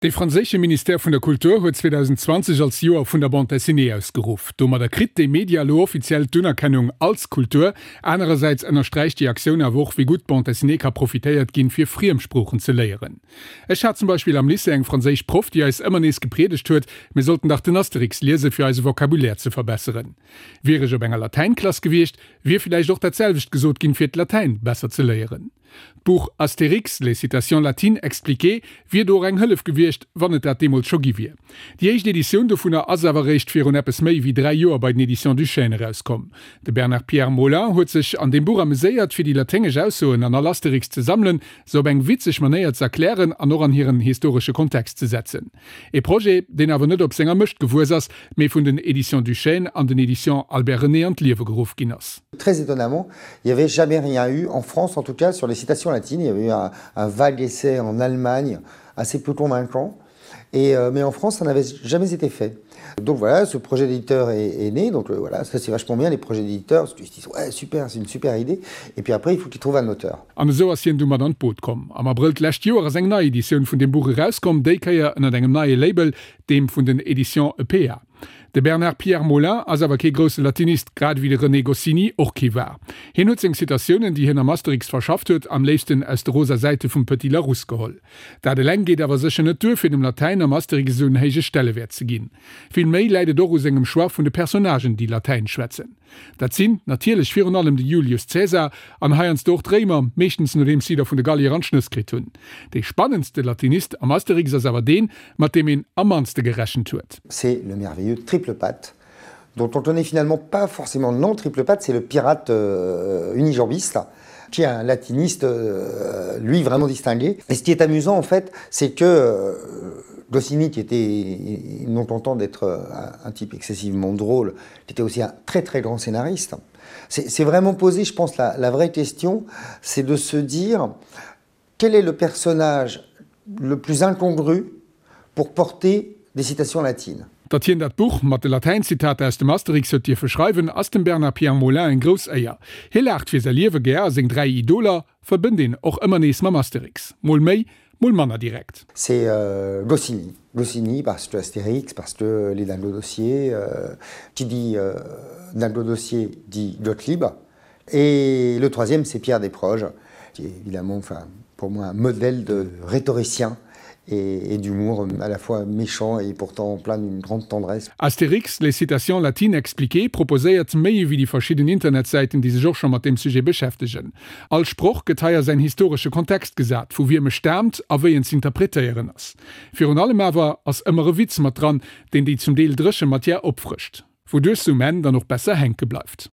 De franséische Ministère vun der Kultur huet 2020 als Joer vun der Bande dessinée ausgeruff. Domadder kritt dee Media elo offiziell d'Unerkennung als Kultur. Anerersäits ënnersträicht déi Aktioun awer och, wéi gutt d'Bande dessinée ka profitéiert ginn, fir Friemsproochen ze léieren. Ech hat zum Beispill am Lycée eng franséisch Proff, déi eis ëmmer nees gepriedegt huet, mir sollten dach den Asterix liesen, fir eise Vocabulaire ze verbesseren. Wier ech op enger Latäinklass gewiescht, wier villäicht och dat selwecht gesot ginn, fir d'Latäin besser ze léieren. D'Buch Astérix, les citations latines expliquées wier do och eng Hëllef gewiescht, wann et dat deemools scho gi wier. Déi éischt Editioun dovunner ass awer eréischt virun eppes méi wéi 3 Joer bei den Editions du Chêne erauskomm. De Bernard-Pierre Molin huet sech an deem Buch ameséiert, fir déi laténgesch Aussoen an all Astérix ze sammelen, se op eng witzeg Manéier ze erklären an och an hiren historesche Kontext ze setzen. E Projet, deen awer net op senger Mëscht gewuess ass, mee vun den Editions du Chêne an den Editions Albert René an d'Liewe geruff ginn ass. Très étonnamment, il n'y avait jamais rien eu, en France en tout cas, sur les citations latines. Il y avait eu un, un vague essai en Allemagne, assez peu convaincant. Et, euh, mais en France, ça n'avait jamais été fait. Donc voilà, ce projet d'éditeur est, est né. Donc euh, voilà, ça c'est vachement bien les projets d'éditeurs, parce qu'ils se disent ouais super, c'est une super idée. Et puis après, il faut qu'ils trouvent un auteur. An esou ass hien du mat an d'Boot komm. Am Abrëll d'lescht Joer ass eng nei Editioun vun deem Buch erauskomm, déi Kéier ënnert engem neie Label, deem vun den Editions EPA. De Bernard-Pierre Molin ass awer kee grousse Latinist, grad ewéi de René Goscinny och kee war. Hien huet seng Citatiounen, déi hien am Asterix verschafft huet, am léifsten aus de rosa Säite vum Petit Larousse geholl. Dat eleng geet awer sécher net duer, fir dem Latäin am Asterix esou en héije Stellewäert ze ginn. Vill méi läit et och u sengem Choix vun de Personnagen, déi Latäin schwätzen. Dat sinn natierlech virun allem de Julius Caesar an heiansdo och d'Réimer, meeschtens nodeems si der vun de Gallier an d'Schnëss kritt hunn. Dee spannendste Latinist am Asterix ass awer deen, mat deem een am mannste gerechent huet. C'est le merveilleux Triple Patte, dont on connaît finalement pas forcément le nom. Triple Patte, c'est le pirate euh, unijambiste qui est un latiniste, euh, lui, vraiment distingué. Et ce qui est amusant, en fait, c'est que euh, Goscinny, qui était non content d'être euh, un, un type excessivement drôle, qui était aussi un très très grand scénariste, c'est vraiment posé, je pense, la, la vraie question, c'est de se dire quel est le personnage le plus incongru pour porter des citations latines. Datt hien dat Buch mat de Latäinzitater aus dem Asterix huet dierfe schreiwen, ass dem Bernard-Pierre Molin eng grouss Éier. Hie laacht fir säi Liewe gär a seng 3 Idoler verbënnt een och ëmmer nees mam Asterix. Mol méi, mol manner direkt. C'est Goscinny. Goscinny parce que Astérix, parce que les Dingo-Dossiers, qui dit Dingo-Dossiers dit Gottlieb. Et le troisième, c'est Pierre Desproges, qui est évidemment, enfin, pour moi, un modèle de rhétoricien et, et d'humour à la fois méchant et pourtant plein d'une grande tendresse. Astérix, les citations latines expliquées proposéiert méi ewéi déi verschidden Internetsäiten, déi sech och scho mat deem Sujet beschäftegen. All Sproch gëtt hei a säin historesche Kontext gesat, vu wiem e staamt a wéi en z'interpretéieren ass. Virun allem awer ass ëmmer e Witz mat dran, deen déi zum Deel dréche Matière opfrëscht, wouduerch se um Enn dann och besser hänke bleift.